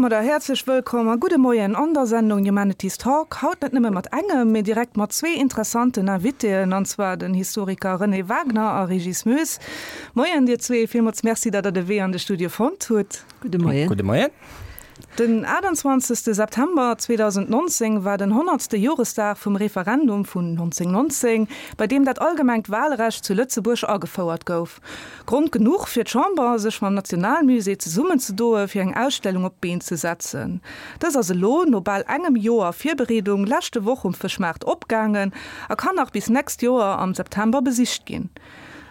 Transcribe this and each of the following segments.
Domadder häerzlech wëllkomm a gudde Moien an der Sendung Humanities Talk. Haut net nëmme mat engem, mee direkt mat zwee interessanten Invitéen, an zwar den Historiker René Wagner a Régis Moes. Moien dir zwee, villmools Merci, datt der de Wee an de Studio fonnt hutt. Gudde Moien. Gudde Moien. Den 28 September 2019 war den honnertste Joresdag vum Referendum vun 1919, bei deem dat allgemengt Walrecht zu Lëtzebuerg agefouert gouf. Grond genuch fir d'Chamber, sech mam Nationalmusée zesummenzedoe fir eng Ausstellung op d'Been ze setzen. Dës ass elo, no bal engem Joer Virbereedung, leschte Woch um Fëschmaart opgaangen a kann nach bis nächst Joer am September besicht ginn.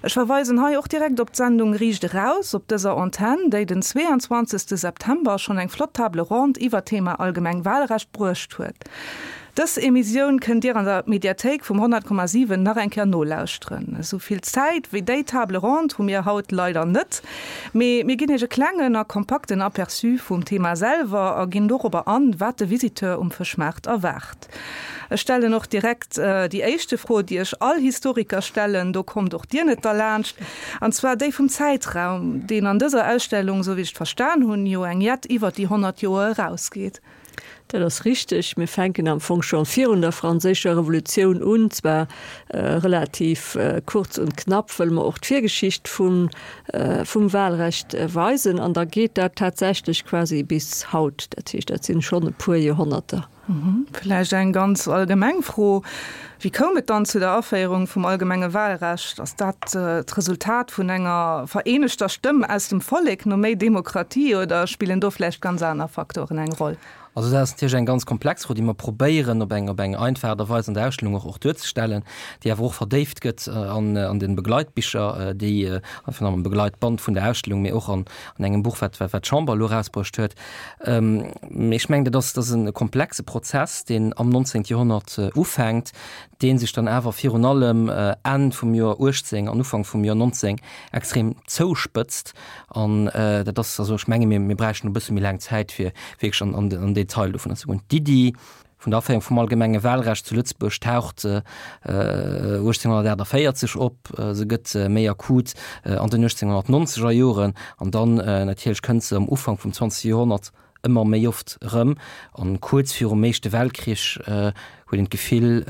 Ech verweisen hei och direkt op d'Sendung Riicht eraus op dëser Antenn, déi den 22 September schonn eng flott Table ronde iwwer d'Thema allgemeng Wahlrecht bruecht huet. Dës Emissioun kënnt Dir an der Mediathéik vum 100,7 nach eng Kéier nolauschteren. Esou vill Zäit wéi déi Table ronde hu mir haut leider net, mee mir ginn Iech e klengen a kompakten Aperçu vum Thema selwer a ginn dorobber an, wat de Visiteur um Fëschmaart erwaart. Ech stellen och direkt déi éischte Fro, déi ech all Historiker stellen, do kommt och Dir net derlaanscht, an zwar déi vum Zäitraum, deen an dëser Ausstellung, esou wéi ech et verstan hunn, jo eng jett iwwer déi 100 Joer erausgeet. Dat ass richteg. Mir fänken am Fong scho virun der Franséischer Revolutioun un, zwar relativ kurz und knapp, wëll mer och d'Virgeschicht vum, vum Wahlrecht weisen. An da geet dat tatsächlech quasi bis haut. Dat heescht, dat sinn schonn e puer Joerhonnerter. Vläicht eng ganz allgemeng Fro, Wéi koum et dann zu der Aféierung vum allgemenge Wahlrecht? Ass dat d'Resultat vun enger vereenegter Stëmm aus dem Vollek no méi Demokratie oder spillen do vläicht ganz aner Faktoren eng Roll? Also dat ass natierlech eng ganz komplex Fro, déi mer probéieren op eng op eng einfach Aart a Weis an der Ausstellung och och duerzestellen, déi awer och verdéift gëtt an an de Begleitbicher, déi enfin am Begleitband vun der Ausstellung, mee och an an engem Buch, wat wat d'Chamber elo erausbruecht huet. Mee ech mengen, dat ass dat ass e komplexe Prozess, deen am 19. Joerhonnert ufänkt, dee sech dann awer virun allem Enn vum Joer 18 an Ufank vum Joer 19 extrem zouspëtzt. An dat ass, also ech menge mir, mir bräichten e bësse méi laang Zäit, fir wierklech an den Detail dovunner ze goen. D'Iddi vun der Aféierung vum allgemenge Wahlrecht zu Lëtzebuerg taucht 1848 op, se gëtt méi akut an den 1890er Joren an dann natierlech kënnt se am Ufank vum 20. Joerhonnert ëmmer méi oft erëm. An kuerz virum Éischte Weltkrich huet een d'Gefill,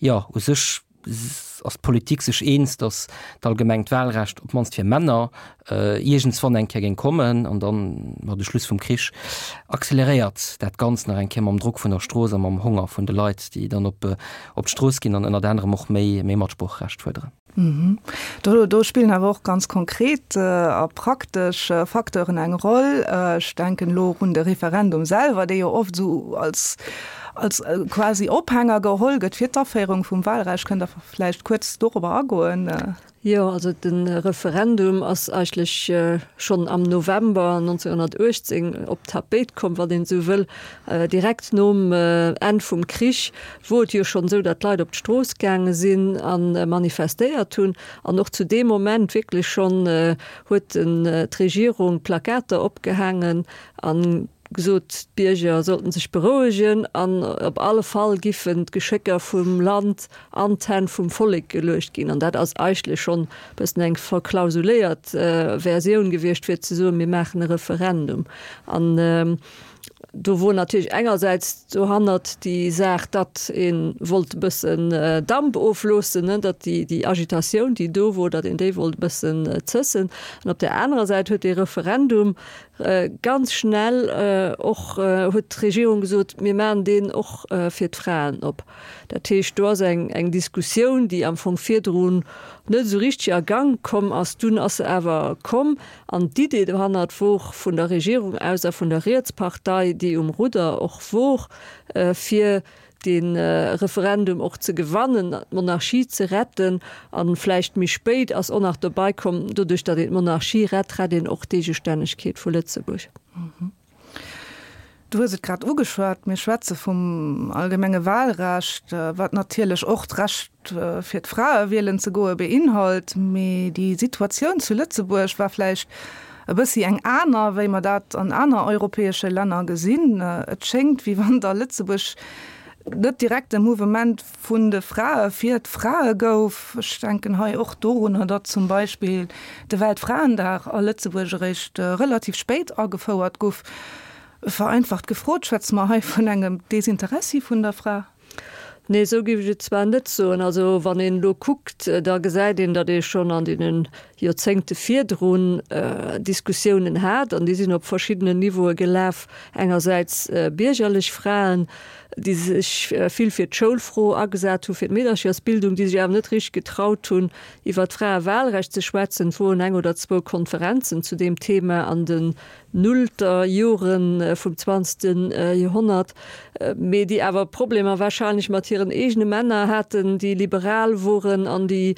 jo u sech ass d'Politik sech eens, datt d'allgemengt Wahlrecht op d'mannst fir Männer iergendswann eng Kéier géing kommen. An dann, ma de Schluss vum Krich acceleréiert dat Ganzt nach eng Kéier mam Drock vun der Strooss a mam Honger vun de Leit, déi dann op d'Strooss ginn an ënnert anerem och méi Matsproocherecht fuerderen. Do spillen awer och ganz konkret a praktesch Facteuren eng Roll. Ech denken elo och un de Referendum selwer, dee jo oft esou als als quasi Ophänger geholl gëtt fir d'Aféierung vum Wahlrecht. Kënnt Der vläicht kuerz dorobber agoen? Jo, also de Referendum ass eigentlech schonn am November 1918 op d'Tapéit komm, wann een esou wëll, direkt nom Enn vum Krich wor et jo schonn esou, datt d'Leit op d'Strooss gaange sinn a manifestéiert hunn. An och zu deem Moment wierklech schonn huet d'Regierung Plakater opgehaangen a gesot, d'Bierger sollten sech berouegen an op alle Fall giffen d'Geschécker vum Land an d'Hänn vum Vollek geluecht ginn. An dat ass eigentlech schonn e bëssen eng verklausuléiert Versioun gewiescht, fir ze soen, mir maachen e Referendum. An do wor natierlech engersäits dohannert déi Saach, datt ee wollt e bëssen Damp ofloossen, datt déi Agitatioun, déi do wor, datt een déi wollt e bëssen zëssen. An op där anerer Säit huet dee Referendum Ganz schnell och huet d'Regierung gesot, mir maachen deen och fir d'Fraen op. Dat heescht, do ass eng eng Diskussioun, déi am Fong virdrun net esou richteg a Gank komm ass. Dunn ass se awer komm. An d'Idee dohannert wor vun der Regierung aus a vun der Rietspartei, déi um Rudder och wor, fir de Referendum och ze gewannen, d'Monarchie ze retten. A vläicht méi spéit ass och nach dobei komm, doduerch datt een d'Monarchie rett, rett een och d'Eegestännegkeet vu Lëtzebuerg. Du hues et grad ugeschwat, mir schwätze vum allgemenge Wahlrecht, wat natierlech och d'Recht fir d'Frae wielen ze goe beinhalt. Mee déi Situatioun zu Lëtzebuerg war vläicht e bëssi eng aner, wéi mer dat an aner europäesche Länner gesinn. Et schéngt, wéi wann et a Lëtzebuerg net direkt e Mouvement vun de Frae fir d'Frae gouf. Ech denken hei och dorunner, datt zum Beispill de Weltfraendag a Lëtzebuerg eréischt relativ spéit agefouert guff. Vereinfacht gefrot, schwätze mer hei vun engem Desinteressi vun der Fra? Nee, esou géif ech et zwar net soen. Also wann een elo kuckt, da gesäit een, datt ee schonn an deene Joerzéngte virdrun Diskussiounen hat, an déi sinn op verschiddenen Niveaue gelaf. Engersäits biergerlech Fraen, déi sech vill fir d'Schoulfro agesat hu fir d'Meederchersbildung, déi sech awer net richteg getraut hunn, iwwer d'Fraewahlrecht ze schwätzen. Et woren eng oder zwou Konferenzen zu deem Thema an den nullter Jore vum zwanzegste Joerhonnert, mee déi awer Problemer wahrscheinlech mat hiren eegene Männer haten, déi liberal woren an déi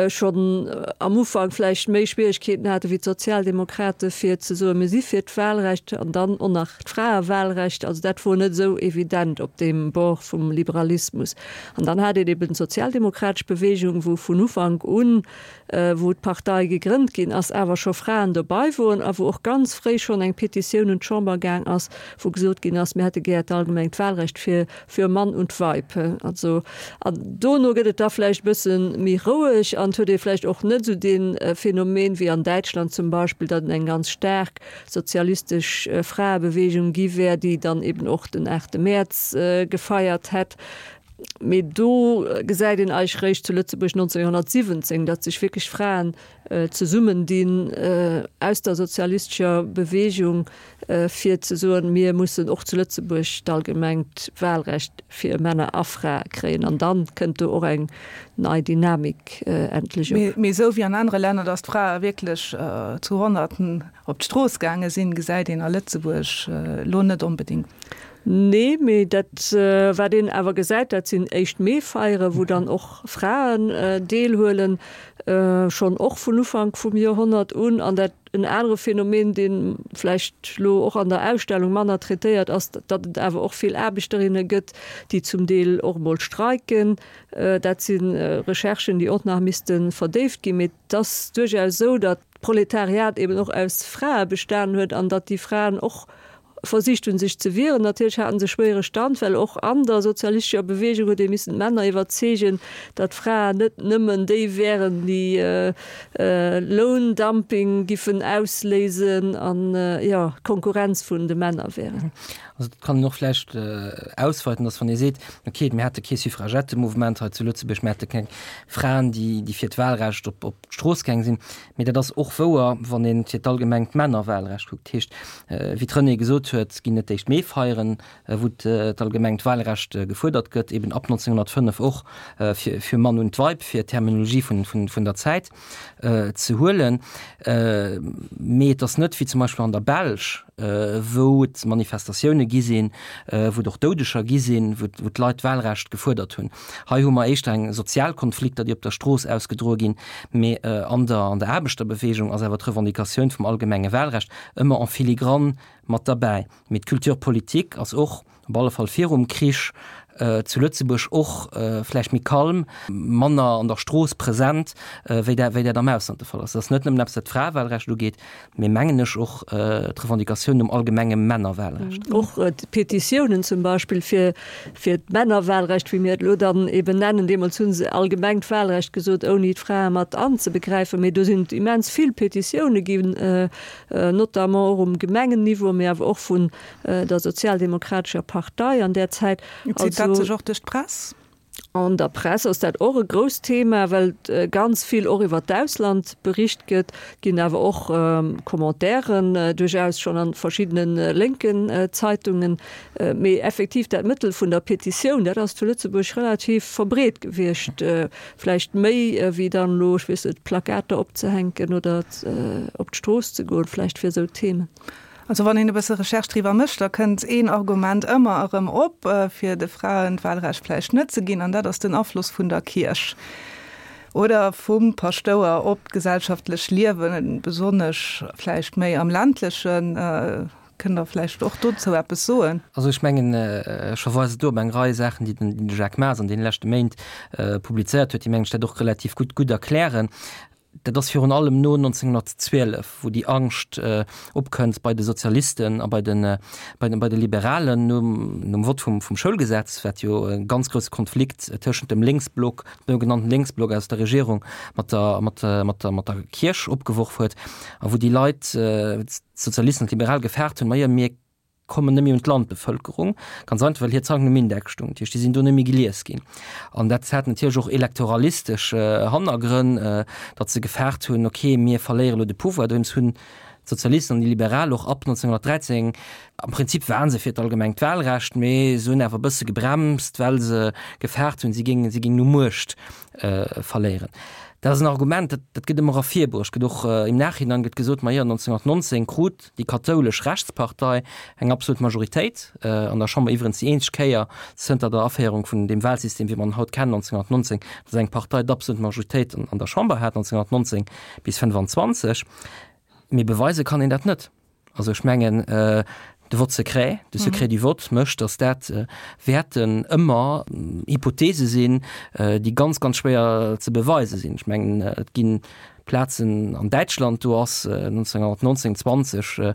schonn am Ufank vläicht méi Schwieregkeeten hate wéi d'Sozialdemokrate fir ze soen, mir si fir d'Wahlrecht an dann och nach d'Fraewahlrecht. Also dat wor net esou evident op deem Bord vum Liberalismus. An dann hat een eben d'sozialdemokratesch Bewegung, wou vun Ufank un, wou d'Partei gegrënnt ginn ass, awer scho Fraen dobei woren a wou och ganz fréi schonn eng Petitioun un d'Chamber gaang ass, wou gesot ginn ass, mir hätte gär d'allgemengt Wahlrecht fir für Mann und Weib. Also, an dono gëtt et da vläicht e bësse méi roueg an et huet ee vläicht och net esou dee Phänomen wéi an Däitschland zum Beispill, datt et eng ganz staark sozialistesch Fraebewegung gi wär, déi dann eben och den 8 Mäerz gefeiert hätt. Mee do gesäit een eigentlech réischt zu Lëtzebuerg 1917, datt sech wierklech Fraen zesummendinn aus der sozialistescher Bewegung, fir ze soen, mir mussen och zu Lëtzebuerg d'allgemengt Wahlrecht fir Männer a Frae kréien. An dann kënnt do och eng nei Dynamik endlech op. Mee esou wéi an anere Länner, datt d'Frae wierklech zu Honnerten op d'Strooss gaange sinn, gesäit een a Lëtzebuerg elo net onbedéngt. Nee, mee dat wat een awer gesäit, dat sinn éischt Mee-Feieren, wou dann och Fraen deelhuelen, schonn och vun Ufank vum Joerhonnert un. An dat en anere Phänomen, dee vläicht elo och an der Ausstellung manner traitéiert ass, datt et awer och vill Aarbechterinne gëtt, déi zum Deel och emol streiken. Dat si Recherchen, déi och nach misste verdéift ginn. Mee et ass duerchaus esou, datt d'Proletariat eben och aus Frae bestanen huet an datt déi Fraen och versicht hunn, sech ze wieren. Natierlech haten se schwéiere Stand, well och an der sozialistescher Bewegung huet ee missen d'Männer iwwerzeegen, datt d'Fraen net nëmmen déi wären, déi Loundumping giffen ausléisen an, jo, Konkurrenz vun de Männer wären. Also dat kann een och vläicht ausweiten, datt wann ee seet, okay, mir hate kee Suffragettemouvement hei zu Lëtzebuerg, mir hate keng Fraen, déi fir d'Wahlrecht op d'Strooss gaang sinn, mee dat ass och wouer, wann ee fir d'allgemengt Männerwahlrecht kuckt. Dat heescht, wéi d'Renée gesot huet, ginn et d'éischt Meefeieren, wou d'allgemengt Wahlrecht gefuerdert gëtt, eben ab 1905 och fir Mann und Weib, fir d'Terminologie vun der Zäit ze huelen. Mee et ass net wéi zum Beispill an der Belsch, wou et Manifestatioune gi sinn, wou et och Doudeger gi sinn, wou d'Leit d'Wahlrecht gefuerdert hunn. Hei hu mer éischter eng sozial Konflikter, déi op der Strooss ausgedroe ginn, mee an der an der Aarbechterbewegung ass awer d'Revendicatioun vum allgemenge Wahlrecht ëmmer en filigrane mat derbäi. Mee d'Culture politique ass och, op alle Fall virum Krich, zu Lëtzebuerg och vläicht méi kalm, manner an der Strooss present, wéi dat wéi dat am Ausland de Fall ass. Dat ass net nëmmen eppes, wat d'Fraewahlrecht ugeet, mee mengen ech och d'Revendicatioun nom allgemenge Männerwahlrecht. Och d'Petitiounen zum Beispill fir fir d'Männerwahlrecht, wéi mir et elo dann eben nennen, deemools hu se allgemengt Wahlrecht gesot, ouni d'Frae mat anzebegräifen, mee do sinn et immens vill Petitioune ginn, notamment och um Gemengenniveau, mee awer och vun der sozialdemokratescher Partei an där Zäit. Zitt dat sech och duerch d'Press? An der Press ass dat och e grousst Thema, well ganz vill och iwwer d'Ausland bericht gëtt. Et ginn awer och Commentairen duerchaus schonn a verschiddene lénken Zeitungen. Mee effektiv dat Mëttel vun der Petitioun, dat ass zu Lëtzebuerg relativ verbreet gewiescht. Vläicht méi wéi dann elo, ech weess net, Plakater opzehänken oder op d'Strooss ze goen, vläicht fir esou Themen. Also wann een e bësse Recherche driwwer mécht, da kënnt een Argument ëmmer erëm op, fir de Fraen d'Wahlrecht vläicht net ze ginn, an dat ass den Afloss vun der Kierch oder vum Paschtouer op d'gesellschaftlech Liewen, besonnesch vläicht méi am ländlechen. Kënnt Der vläicht och dozou eppes soen? Also ech mengen, ech verweisen do op eng Rei Saachen, déi den Jacques Maas an deene leschte Méint publizéiert huet, déi mengen ech dat och relativ gutt gutt erklären. Dat ass virun allem no 1912, wou déi Angscht opkënnt bei de Sozialisten a bei de, bei de, bei de Liberalen nom, nom Vott vum, vum Schoulgesetz, wat jo e ganz grousse Konflikt tëschent dem Lénksblock, dem sougenannten Lénksblock aus der Regierung mat der, mat, mat der, mat der Kierch opgeworf huet a wou déi Leit, d'Sozialisten an d'Liberal gefaart hunn, Majo, mir. kommen net méi un d'Landbevëlkerung, ganz einfach well hir Zeitungen um Index stoungen, dat heescht déi sinn do net méi gelies ginn. An dat hat natierlech och elektoralistesch Hannergrënn, datt se gefaart hunn, ok mir verléiere lo de Pouvoir. Dowéinst hunn d'Sozialisten an déi Liberal och ab 1913, am Prinzip waren se fir d'allgemengt Wahlrecht, mee se hunn awer e bësse gebremst, well se gefaart hunn, si géingen, si géingen u Muecht verléieren. Dat ass en Argument, dat, dat gëtt ëmmer ervirbruecht, gëtt och im Nachhinein gëtt gesot, ma jo, 1919 krut déi kathoulesch Rechtspartei eng absolut Majoritéit an der Chamber, iwwerens déi eenzeg Kéier zënter der Aféierung vun deem Wahlsystem, wéi mer en haut kennen, 1919, datt eng Partei d'absolut Majoritéit an der Chamber hat, 1919 bis 25. Mee beweise kann een dat net. Also ech mengen, de Vote secret, de Secret du vote mécht, datt dat wäerten ëmmer Hypothese sinn, déi ganz, ganz schwéier ze beweise sinn. Ech mengen, et gi Plazen an Däitschland, do ass 1919, 20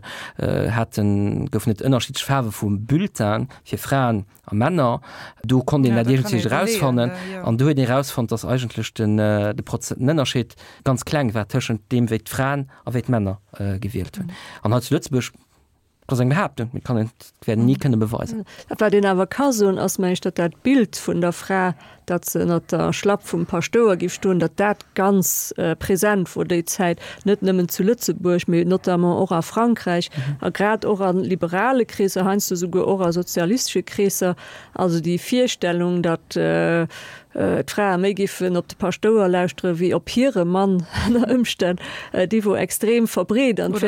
haten, goufen et ënnerschiddlech Faarwe vum Bulletin fir Fraen a Männer. Do konnt een dat iergendwéi erausfannen. An do huet een erausfonnt, datt eigentlech den de Prozent, den Ënnerscheed ganz kleng war tëschent deem, wéi d'Fraen a wéi d'Männer gewielt hunn. An hei zu Lëtzebuerg, dat ass eng Behaaptung, mee kann een, dat wäert een ni kënne beweisen. Dat wat een awer ka soen, ass, meng ech, datt dat Bild vun der Fra, datt se ënnert der Schlapp vum Paschtouer giff stoen, datt dat ganz present wor déi Zäit, net nëmmen zu Lëtzebuerg, mee notamment och a Frankräich a grad och a liberale Kreesser, heiansdo souguer och a sozialistesche Kreesser. Also déi Virstellung, datt d'Frae méi giffen op de Paschtouer lauschtere wéi op hire Mann ënner Ëmstänn, déi wor extrem verbreet an et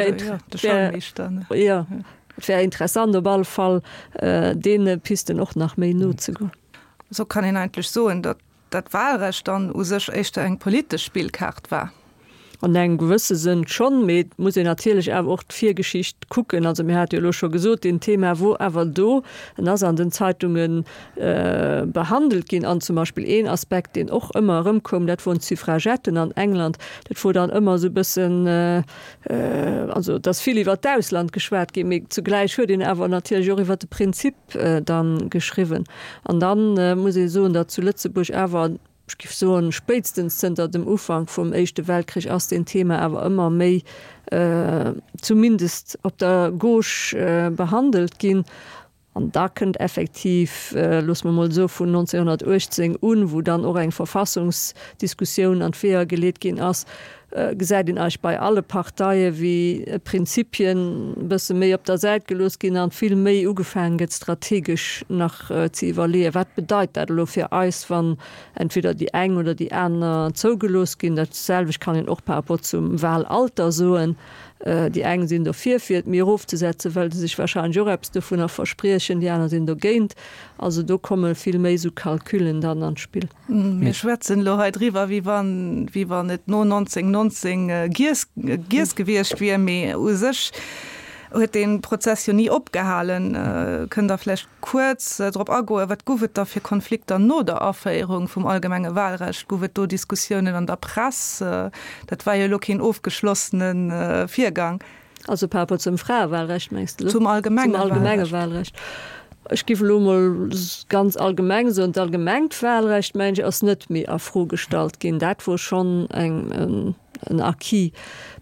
wär interessant op alle Fall deene Pisten och nach méi nozegoen. Esou kann een eigentlech soen, datt dat Wahlrecht dann u sech éischter eng politesch Spillkaart war. An engem gewësse Sënn schonn, mee et muss een natierlech awer och d'Virgeschicht kucken. Also mir hate jo elo scho gesot, deen Thema wor awer do, en ass an den Zeitunge behandelt ginn. An zum Beispill een Aspekt, deen och ëmmer erëmkoum, dat woren d'Suffragetten an England. Dat wor dann ëmmer esou e bëssen, also et ass vill iwwer d'Ausland geschwat ginn, mee zugläich huet een awer natierlech och iwwer de Prinzip dann geschriwwen. An dann muss ee soen, datt zu Lëtzebuerg awer, ech géif soen, spéitstens zënter dem Ufank vum Éischte Weltkrich ass deen Thema awer ëmmer méi, zumindest op der Gauche, behandelt ginn. An da kënnt effektiv, loosse mer emol soe vun 1918 un, wou dann och eng Verfassungsdiskussioun an d'Weeër geleet ginn ass, gesäit een eigentlech bei alle Parteie wéi Prinzipien e bësse méi op der Säit gelooss ginn an vill méi ugefaangen gëtt strategesch nach ze iwwerleeën, wat bedeit dat elo fir eis, wann entweder déi eng oder déi aner zougelooss ginn. Dat selwecht kann een och par rapport zum Wahlalter soen. Déi eng sinn dofir, fir et méi erofzesetzen, well se sech wahrscheinlech och eppes dovunner verspriechen, déi aner sinn dogéint. Also do komme vill méi esou Calculen dann an d'Spill. Mir schwätzen elo hei driwwer, wéi wann, wéi wann et no 1919 giess, giess gewiescht wier, mee u sech huet dee Prozess jo ni opgehalen. Kënnt Der vläicht kuerz drop agoen, wat gouf et da fir Konflikter no der Aféierung vum allgemenge Wahlrecht? Gouf et do Diskussiounen an der Press? Dat war jo elo keen ofgeschlossene Virgang. Also par rapport zum Fraewahlrecht, mengs de elo? Zum allgemenge Zum allgemenge Wahlrecht. Ech géif elo emol ganz allgemeng soen, d'allgemengt Wahlrecht, mengen ech, ass net méi a Fro gestallt ginn. Dat wor schonn eng, en Acquis.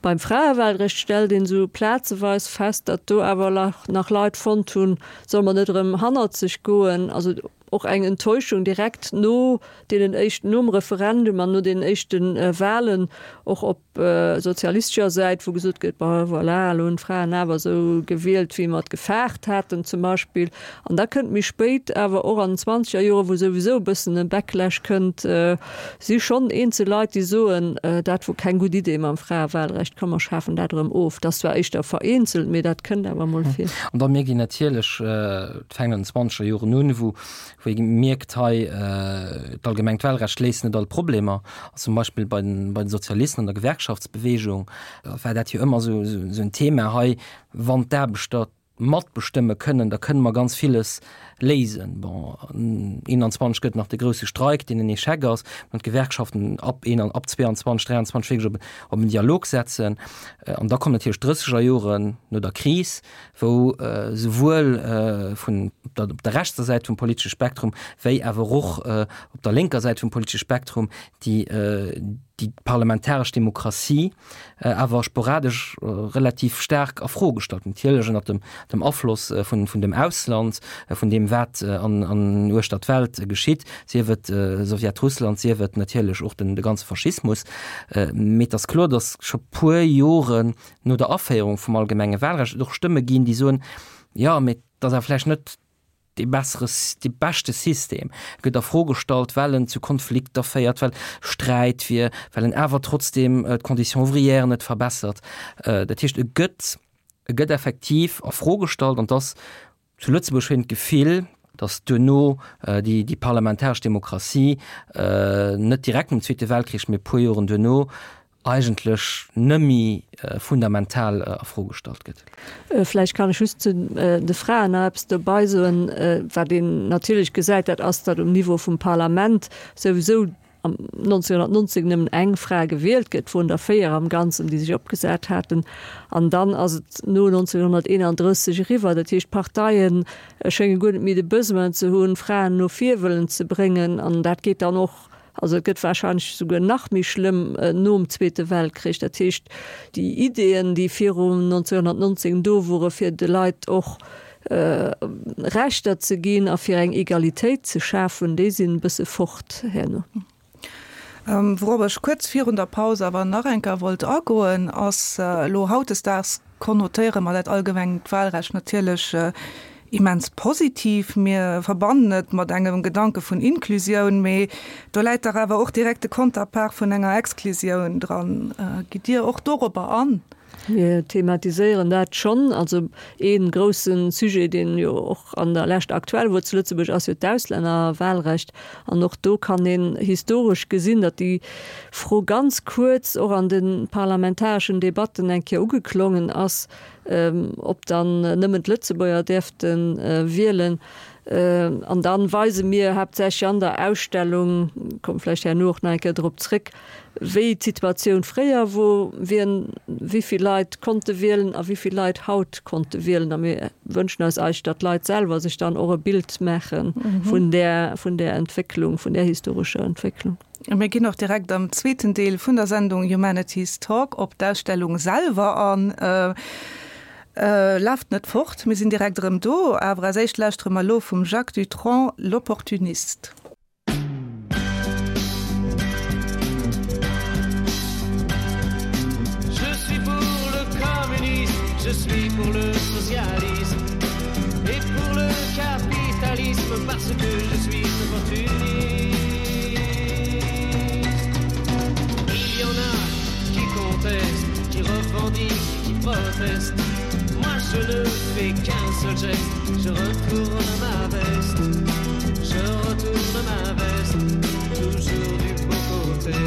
Beim Fraewahlrecht stellt een esou plazeweis fest, datt do awer nach Leit fonnt hunn, solle mer net erëm hannerzeg goen? Also och eng Enttäuschung direkt no deenen éischten, nom Referendum an no deenen éischte Wahlen, och op sozialistescher Säit, wou gesot gëtt, bon voilà, elo hunn d'Fraen awer esou gewielt, wéi mer et gefaart haten zum Beispill. An da kënnt méi spéit awer och an den zwanzeger Joren, wou souwisou e bëssen e Backlash kënnt, si schonn eenzel Leit, déi soen, dat wor keng gutt Idee mam Fraewahlrecht, komm mer schafen dat erëm of. Dat ass zwar éischter vereenzelt, mee dat kënnt awer emol vir. An da mierkt een natierlech, et fänkt an den zwanzeger Joren un, wou wou ee mierkt, hei d'allgemengt Wahlrecht léist net all Problemer. Zum Beispill bei den, bei den Sozialisten an der Gewerkschaftsbewegung war dat jo ëmmer esou, esou en Thema hei, wann d'Aarbechter matbestëmme kënnen, da kënne mer ganz villes léisen. Bon, 21 gëtt nach de grousse Streik, deen en Echec ass, wann d'Gewerkschaften ab een, ab 22, 23 wierklech op, op en Dialog setzen. An da kommen natierlech d'drësseger Joren no der Kris, wou souwuel vun der, op der rechtser Säit vum politesche Spektrum wéi awer och op der lénker Säit vum politesche Spektrum déi. déi parlamentaresch Demokratie awer sporadesch relativ staark a Fro gestallt, natierlech ënnert dem, dem Afloss vun, vun dem Ausland, vun deem wat an, an uechter d'Welt geschitt, sief et Sowjetrussland, sief et natierlech och den, de ganze Faschismus. Mee et ass kloer, datt scho puer Joren no der Aféierung vum allgemenge Wahlrecht et och Stëmme ginn, déi soen, jo, mee et ass awer vläicht net dee bessere, dee beschte System gëtt a Fro gestallt, well en zu Konflikter féiert, well Sträit wier, well en awer trotzdeem d'Conditions ouvrières net verbessert. Dat heescht, e gëtt, e gëtt effektiv a Fro gestallt an dass zu Lëtzebuerg huet een d'Gefill, dass duerno déi, déi parlamentaresch Demokratie net direkt nom Zweete Weltkrich, mee e puer Joren duerno eigentlech nëmmi fundamental a Fro gestallt gëtt. Vläicht kann ech just zu de Fraen nach eppes dobei soen. Wat een natierlech gesäit, dat ass, datt um Niveau vum Parlament souwisou am 1919 nëmmen eng Fra gewielt gëtt, woren der 4 am Ganzen, déi sech opgesat haten. An dann ass et no 1931 eriwwer. Dat heescht, d'Parteie schénge guer net méi de Besoin ze hunn, Fraen no vir wëllen ze bréngen. An dat geet dann och Also et gëtt wahrscheinlech souguer nach méi schlëmm nom Zweete Weltkrich. Dat heescht, déi Ideeën, déi viru 1919 do wore fir de Leit och Rechter ze ginn a fir eng Egalitéit ze schafen, déi sinn e bësse fort herno. Wourop ech kuerz virun der Paus awer nach eng Kéier wollt agoen, ass elo hautdesdaags konnotéiere mer dat allgemengt Wahlrecht natierlech immens positiv. Mir verbannen et mat engem Gedanke vun Inklusioun, mee do läit dach awer och direkt de Konterpart vun enger Exklusioun dran. Gitt Dir och dorobber an? Mir thematiséieren dat schonn. Also ee grousse Sujet, deen jo och an der Lescht aktuell wor zu Lëtzebuerg, ass jo d'Auslännerwahlrecht. An och do kann een historesch gesinn, datt déi Fro ganz kuerz och an de parlamentareschen Debatten eng Kéier ugeklongen ass, ob dann nëmmen d'Lëtzebuerger däerfte wielen. An da weise mir haaptsächlech an der Ausstellung, komme vläicht herno och nach eng Kéier drop zréck, wéi d'Situatioun fréier wor, wien, wéi vill Leit konnte wielen a wéi vill Leit haut konnte wielen. A mir wënschen eis eigentlech, datt d'Leit selwer sech dann och e Bild maache vun där, vun där Entwécklung, vun där historescher Entwécklung. Mir ginn och direkt am zweeten Deel vun der Sendung Humanities Talk op d'Ausstellung selwer an. Laaft net fort, mir sinn direkt erëm do. Awer als éischt lauschtere mer elo vum Jacques Dutronc L'Opportuniste. Je suis pour le communisme, je suis pour le socialisme et pour le capitalisme parce que je suis opportuniste. Il y en a qui contestent, qui revendiquent, qui protestent. Moi je ne fais qu'un seul geste, je retourne ma veste. Je retourne ma veste, toujours du bon côté.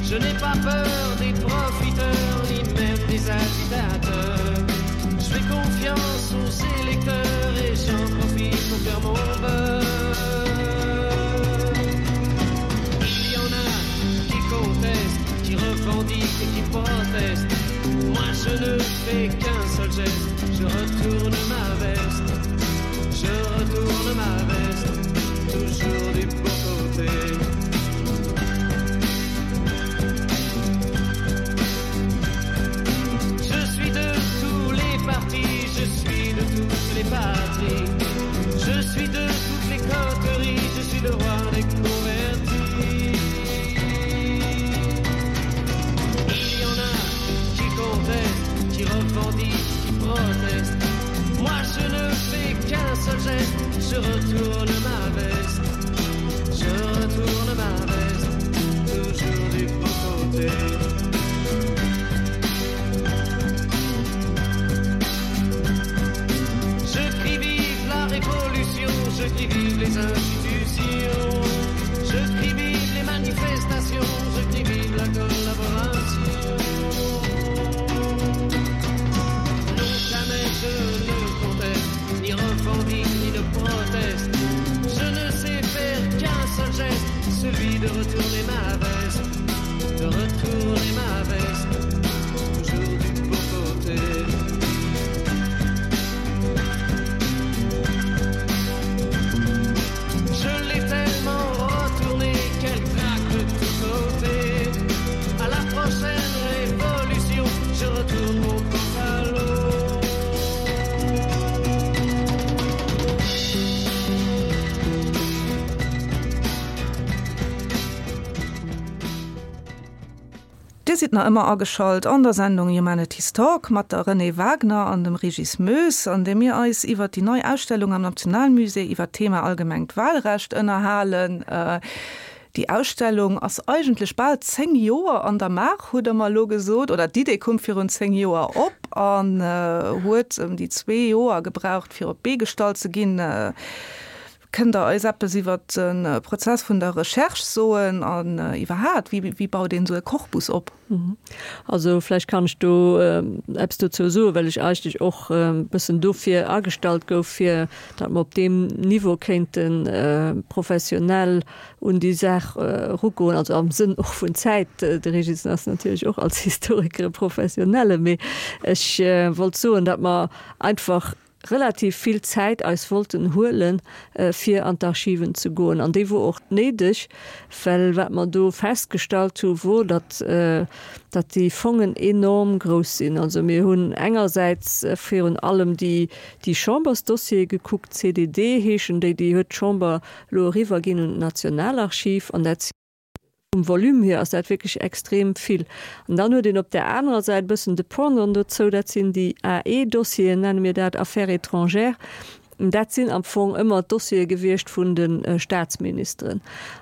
Je n'ai pas peur des profiteurs, ni même des agitateurs. Je fais confiance aux électeurs et j'en profite pour faire mon beurre. Il y en a qui contestent, qui revendiquent et qui protestent. Moi je ne fais qu'un seul geste, je retourne ma veste. Je retourne ma veste, toujours du bon côté. Je suis de tous les partis, je suis de toutes les patries. Je suis de toutes les coteries, je suis le roi des convertis. Il y en a qui contestent, qui revendiquent, qui protestent. Moi je ne fais qu'un seul geste, je retourne ma veste. Je retourne ma veste, toujours du bon côté. Je crie vive la révolution, je crie vive les institutions, je crie vive les manifestations, je crie vive la collaboration. Non, jamais je ne conteste, ni revendique, ni ne proteste. Je ne sais faire qu'un seul geste, celui de retourner ma veste, de retourner ma veste, toujours du bon côté. Dir sidd nach ëmmer ageschalt an der Sendung Humanities Talk mat der Renée Wagner an dem Régis Moes, an där mir eis iwwert déi nei Ausstellung am Nationalmusée iwwert d'Thema allgemengt Wahlrecht ënnerhalen. Déi Ausstellung ass eigentlech bal 10 Joer an der Maach, hutt Der mer elo gesot, oder d'Idee koum virun 10 Joer op an huet ëm déi zwee Joer gebraucht, fir op d'Bee gestallt ze ginn. Kënnt Der eis eppes iwwer de Prozess vun der Recherche soen an iwwerhaat, wéi baut een esou e Korpus op? Also vläicht kann ech do eppes dozou soen, well ech eigentlech och e bëssen dofir agestallt gouf, fir datt mer op deem Niveau kéinte professionell un déi Saach erugoen, also am Sënn och vun Zäit. De Régis ass natierlech och als Historiker e Professionelle, mee ech wollt soen, datt mer einfach relativ vill Zäit eis wollten huelen, fir an d'Archiven ze goen. An déi wor och néideg, well wat mer do festgestallt hu wor, datt, datt déi Fongen enorm grouss sinn. Also mir hunn engersäits virun allem déi, déi Chambersdossiere gekuckt, CDD heeschen déi, déi huet d'Chamber elo eriwwerginn un d'Nationalarchiv an dat Vum Volume hier ass dat wierklech extrem vill. An dann huet een op där anerer Säit e bëssen de Pendant dozou, dat sinn déi AE-Dossieren, nenne mir dat, Affaires étrangères. Dat sinn am Fong ëmmer d'Dossiere gewiescht vun de Staatsministeren.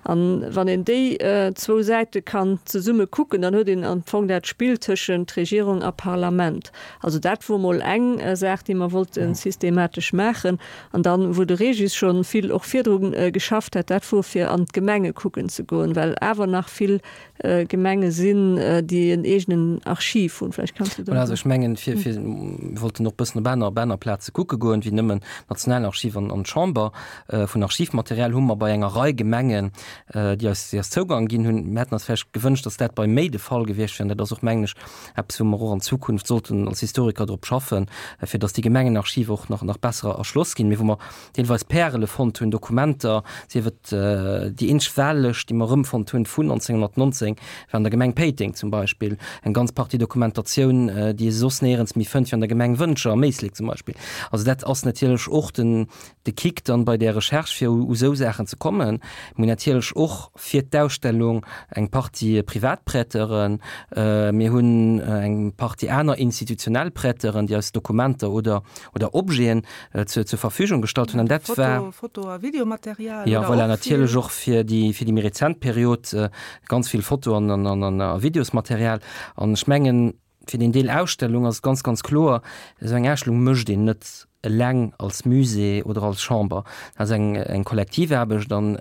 An wann een déi zwou Säite kann zesumme kucken, dann huet een am Fong dat Spill tëschent Regierung a Parlament. Also dat wor mol eng Saach, déi mer wollte systematesch maachen. An dann, wou de Régis scho vill och virdru geschafft hat, dat wor fir an d'Gemenge kucken ze goen, well awer nach vill Gemenge sinn, déi en eegenen Archiv hunn. Vläicht kanns du do. Voilà, also ech mengen, fir, fir, mir wollten och e bëssen op aner, op aner Plaze kucke goen, wéi nëmmen d'Nationalarchiv an, an d'Chamber. Vun Archivmaterial hu mer bei enger Rei Gemengen, déi eis, déi eis Zougang ginn hunn. Mir hätten eis vläicht gewënscht, dass dat bei méi de Fall gewiescht wier. An dat ass och, mengen ech, eppes, wou mer och an Zukunft sollten als Historiker drop schaffen, fir dass déi Gemengenarchive och nach, nach besser erschloss ginn, mee wou mer deelweis Pärele fonnt hunn, Dokumenter, sief et déi eenzeg Wahllëscht, déi mer erëmfonnt hunn vun 1919, war an der Gemeng Péiteng zum Beispill, eng ganz Partie Dokumentatioun, déi ee soss néierens méi fënnt, wéi an der Gemeng Wëntger am Éislek zum Beispill. Also dat ass natierlech och den, de Kick dann bei där Recherche, fir u sou Saachen ze kommen. Mir hunn natierlech och fir d'Ausstellung eng Partie Privatprêteuren, mir hunn eng Partie aner institutionell Prêteuren, déi eis Dokumenter oder oder Objeten zur zur Verfügung gestallt hunn. An dat war. Foto a Videomaterial. Jo, voilà, natierlech och fir déi fir déi méi rezent Period ganz vill Foto an an a Videosmaterial. An ech mengen, Fir den Deel Ausstellung ass et ganz, ganz kloer, esou eng Ausstellung mécht een net eleng als Musée oder als Chamber. Dat ass eng, eng Kollektivaarbecht an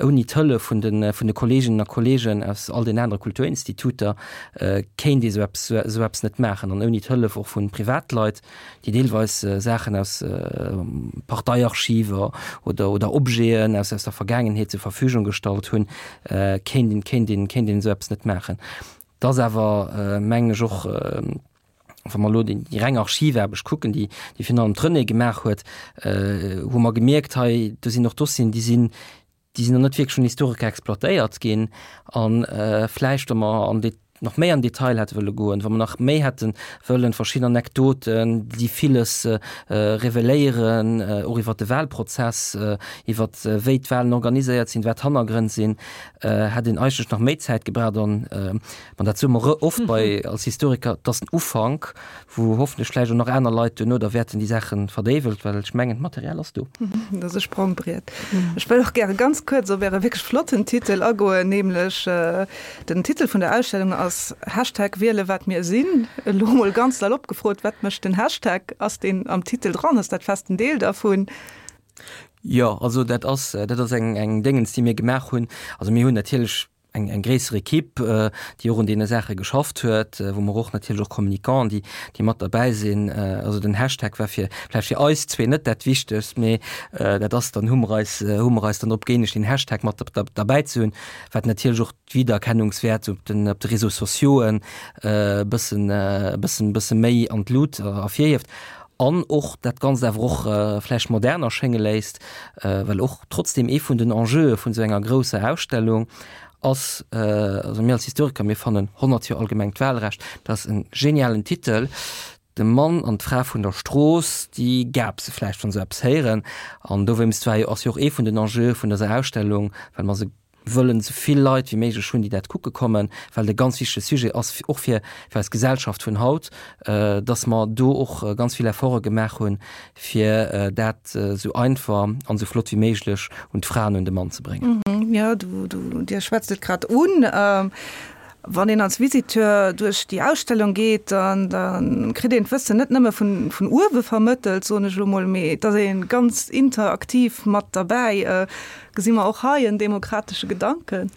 ouni d'Hëllef vun de, vun de Kolleeginnen a Kolleegen aus all den anere Kulturinstituter kéint ee sou eppes, esou eppes net maachen an ouni d'Hëllef och vu Privatleit, déi deelweis Saachen aus Parteiarchiver oder, oder Objeten aus, aus der Vergaangenheet zur Verfügung gestallt hunn, kéint een, kéint een, kéint een esou eppes net maachen. Et ass awer, mengen ech, och, wa mer elo déi reng Archivaarbecht kucken, déi déi virun allem d'Renée gemaach huet, hu mer gemierkt, hei do sinn och Dossieren, déi sinn, déi sinn nach net wierklech vun Historiker exploitéiert ginn. A vläicht, wa mer an de nach méi an Detail hätte wëlle goen, wa mer nach méi hätte wëllen verschidden Anekdoten, déi villes reveléieren, och iwwert de Wahlprozess, iwwert wéi d'Wahlen organiséiert sinn, wat d'Hannergrënn sinn, hätt een eigentlech nach méi Zäit gebraucht an an dat soe mer oft bei als Historiker, et ass den Ufank, wou hoffentlech vläicht och nach aner Leit duerno da wäerten déi Saache verdéiwelt, well ech mengen d'Material ass do. Dat ass e Sprongbriet. Ech wëll och gäre ganz kuerz op Äre wierklech flotten Titel agoen, nämlech den Titel vun der Ausstellung ass Hashtag Wiele wat mir sinn. Elo mol ganz salopp gefrot, wat mécht den Hashtag? Ass deen am Titel dran? Ass dat festen Deel dervun? Jo, also dat ass, dat ass eng, eng Déngens, déi mir gemaach hunn. Also mir hunn natierlech eng, eng gréisser Ekipp, déi och un deene Saache geschafft huet, wou mer och natierlech och Communicants, déi, déi mat derbäi sinn. Also den Hashtag war fir, vläicht fir eis zwee net dat Wichtegst, mee dat ass dann, hu mer eis, hu mer eis dann drop gëeenegt, den Hashtag mat derbäi ze hunn, wat natierlech och d'Wiedererkennungswäert op den, op de Réseaux sociauxen e bëssen, e bëssen, bësse méi an d'Lut ervirhieft. An och dat Ganzt awer och vläicht modern erschénge léisst, well och trotzdem ee vun den Enjeue vun esou enger grousser Ausstellung ass, also mir als Historiker, mir fannen 100 Joer allgemengt Wahlrecht, dat ass e genialen Titel. De Mann an d'Fra vun der Strooss, déi gapse vläicht, wa se eppes héieren. An dowéinst war jo, ass jo och ee vun den Enjeue vun dëser Ausstellung, well mer se. wëllen esou vill Leit wéi méiglech hunn, déi dat kucke kommen, well et e ganz wichtege Sujet ass, och fir fir eis Gesellschaft vun haut, dass mer do och ganz vill Efforte gemaach hunn, fir dat esou einfach an esou flott wéi méiglech un d'Fra an un de Mann ze bréngen. Jo, du, du, Dir schwätzt et grad un. Wann een als Visiteur duerch déi Ausstellung geet, dann, da kritt een d'Wëssen net nëmme vun, vun uewe vermëttelt, soen ech elo mol, mee et ass ee ganz interaktiv mat derbäi. Gesi mer och hei en demokratesche Gedanken?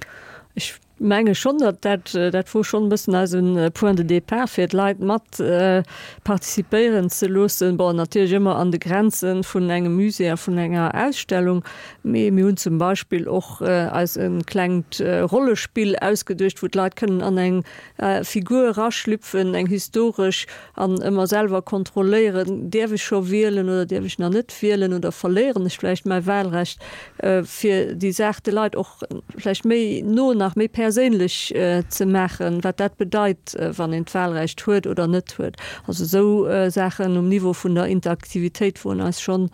Ech menge schonn, datt dat, dat wor schonn e bëssen eise Point de départ, fir d'Leit mat participéieren ze loossen. Bon, natierlech ëmmer an de Grenze vun engem Musée a vun enger Ausstellung. Mee mir hunn zum Beispill och eis e klengt Rollespill ausgeduecht, wou d'Leit kënnen an eng Figur eraschlüpfen, eng historesch, an ëmmer selwer kontrolléieren, Däerf ech scho wielen oder däerf ech nach net wielen oder verléieren ech vläicht mäi Wahlrecht? Fir déi Saach de Leit och vläicht méi no, nach méi perséinlech ze maachen, wat dat bedeit, wann een d'Wahlrecht huet oder net huet. Also esou Saachen um Niveau vun der Interaktivitéit woren eis schonn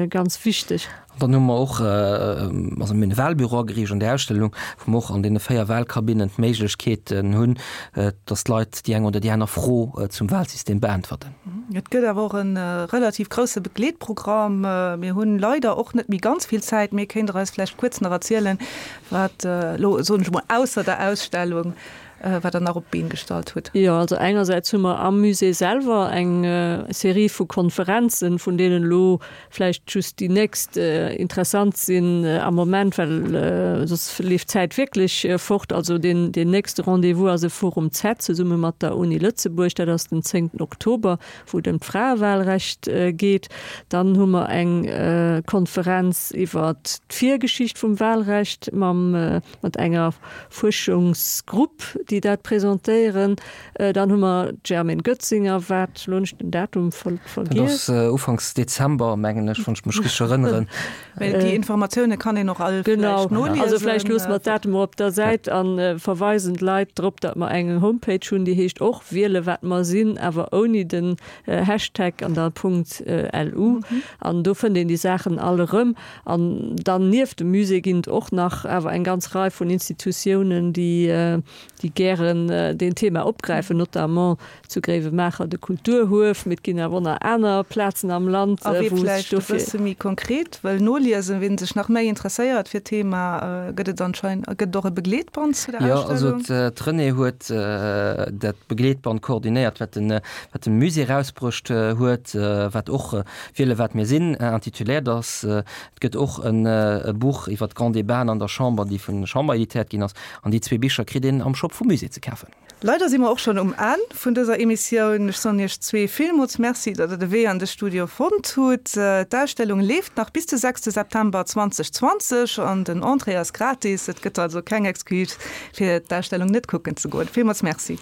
ganz wichteg. An dann hu mer och, also mir hunn e Wahlbüro ageriicht an där Ausstellung, wou mer och an deene 4 Wahlkabinnen d'Méiglechkeeten hunn, dass d'Leit déi eng oder déi aner Fro zum Wahlsystem beäntwerten. Et gëtt awer och e relativ grousse Begleetprogramm. Mir hunn leider och net méi ganz vill Zäit, mee kéint Der eis vläicht kuerz nach erzielen, wat elo, soen ech emol, ausser der Ausstellung, wat Der nach op d'Been gestallt hutt? Jo, also engersäits hu mer am Musée selwer eng Serie vu Konferenzen, vun deenen elo vläicht just déi nächst interessant sinn am Moment, well soss leeft d'Zäit wierklech fort. Also deen nächste Rendez-vous ass e Forum Z zesumme mat der Uni Lëtzebuerg, dat ass den zéngten Oktober, wou et ëm d'Fraewahlrecht geet. Dann hu mer eng Konferenz iwwer d'Virgeschicht vum Wahlrecht mam mat enger Fuerschungsgrupp, déi dat presentéieren. Dann hu mer d'Germaine Goetzinger, wat, elo hunn ech den Datum vergiess. Dat ass ufanks Dezember, mengen ech, wann ech mech richteg erënneren. Mä déi Informatioune kann een och all vläicht noliesen. Genau, also vläicht loosse mer d'Datumer op der Säit a verweisen d'Leit drop, datt mer eng Homepage hunn, déi heescht och Wiele wat mer sinn, awer ouni den Hashtag an da Punkt LU. An do fënnt een déi Saachen all erëm. An dann nieft dem Musée ginn et och nach awer eng ganz Rei vun Institutiounen, déi déi gären deen Thema opgräifen, notamment zu Gréiwemaacher de Kulturhuef, mee et ginn awer och nach aner Plazen am Land, A wee wou sech vläicht e dofir. bësse méi konkret wëll noliesen, ween sech nach méi interesséiert fir d'Thema, gëtt et anscheinend, gëtt et och e Begleetband zu der Jo, also Ausstellung? d'Renée huet dat Begleetband koordinéiert, wat de, wat de Musée erausbruecht huet, wat och Wiele wat mir sinn intituléiert ass. Et gëtt och e Buch iwwer d'Grands Débats an der Chamber, déi vun der Chamber editéiert ginn ass. An déi zwee Bicher kritt een am Shop vum Musée ze kafen. Leider si mer och schonn um Enn vun dëser Emissioun. Ech soen iech zwee villmools Merci, datt der de Wee an de Studio fonnt hutt. D'Ausstellung leeft nach bis de sechste September 2020 an den Entrée ass gratis. Et gëtt also keng Excuse fir d'Ausstellung net kucken ze goen. Villmools Merci.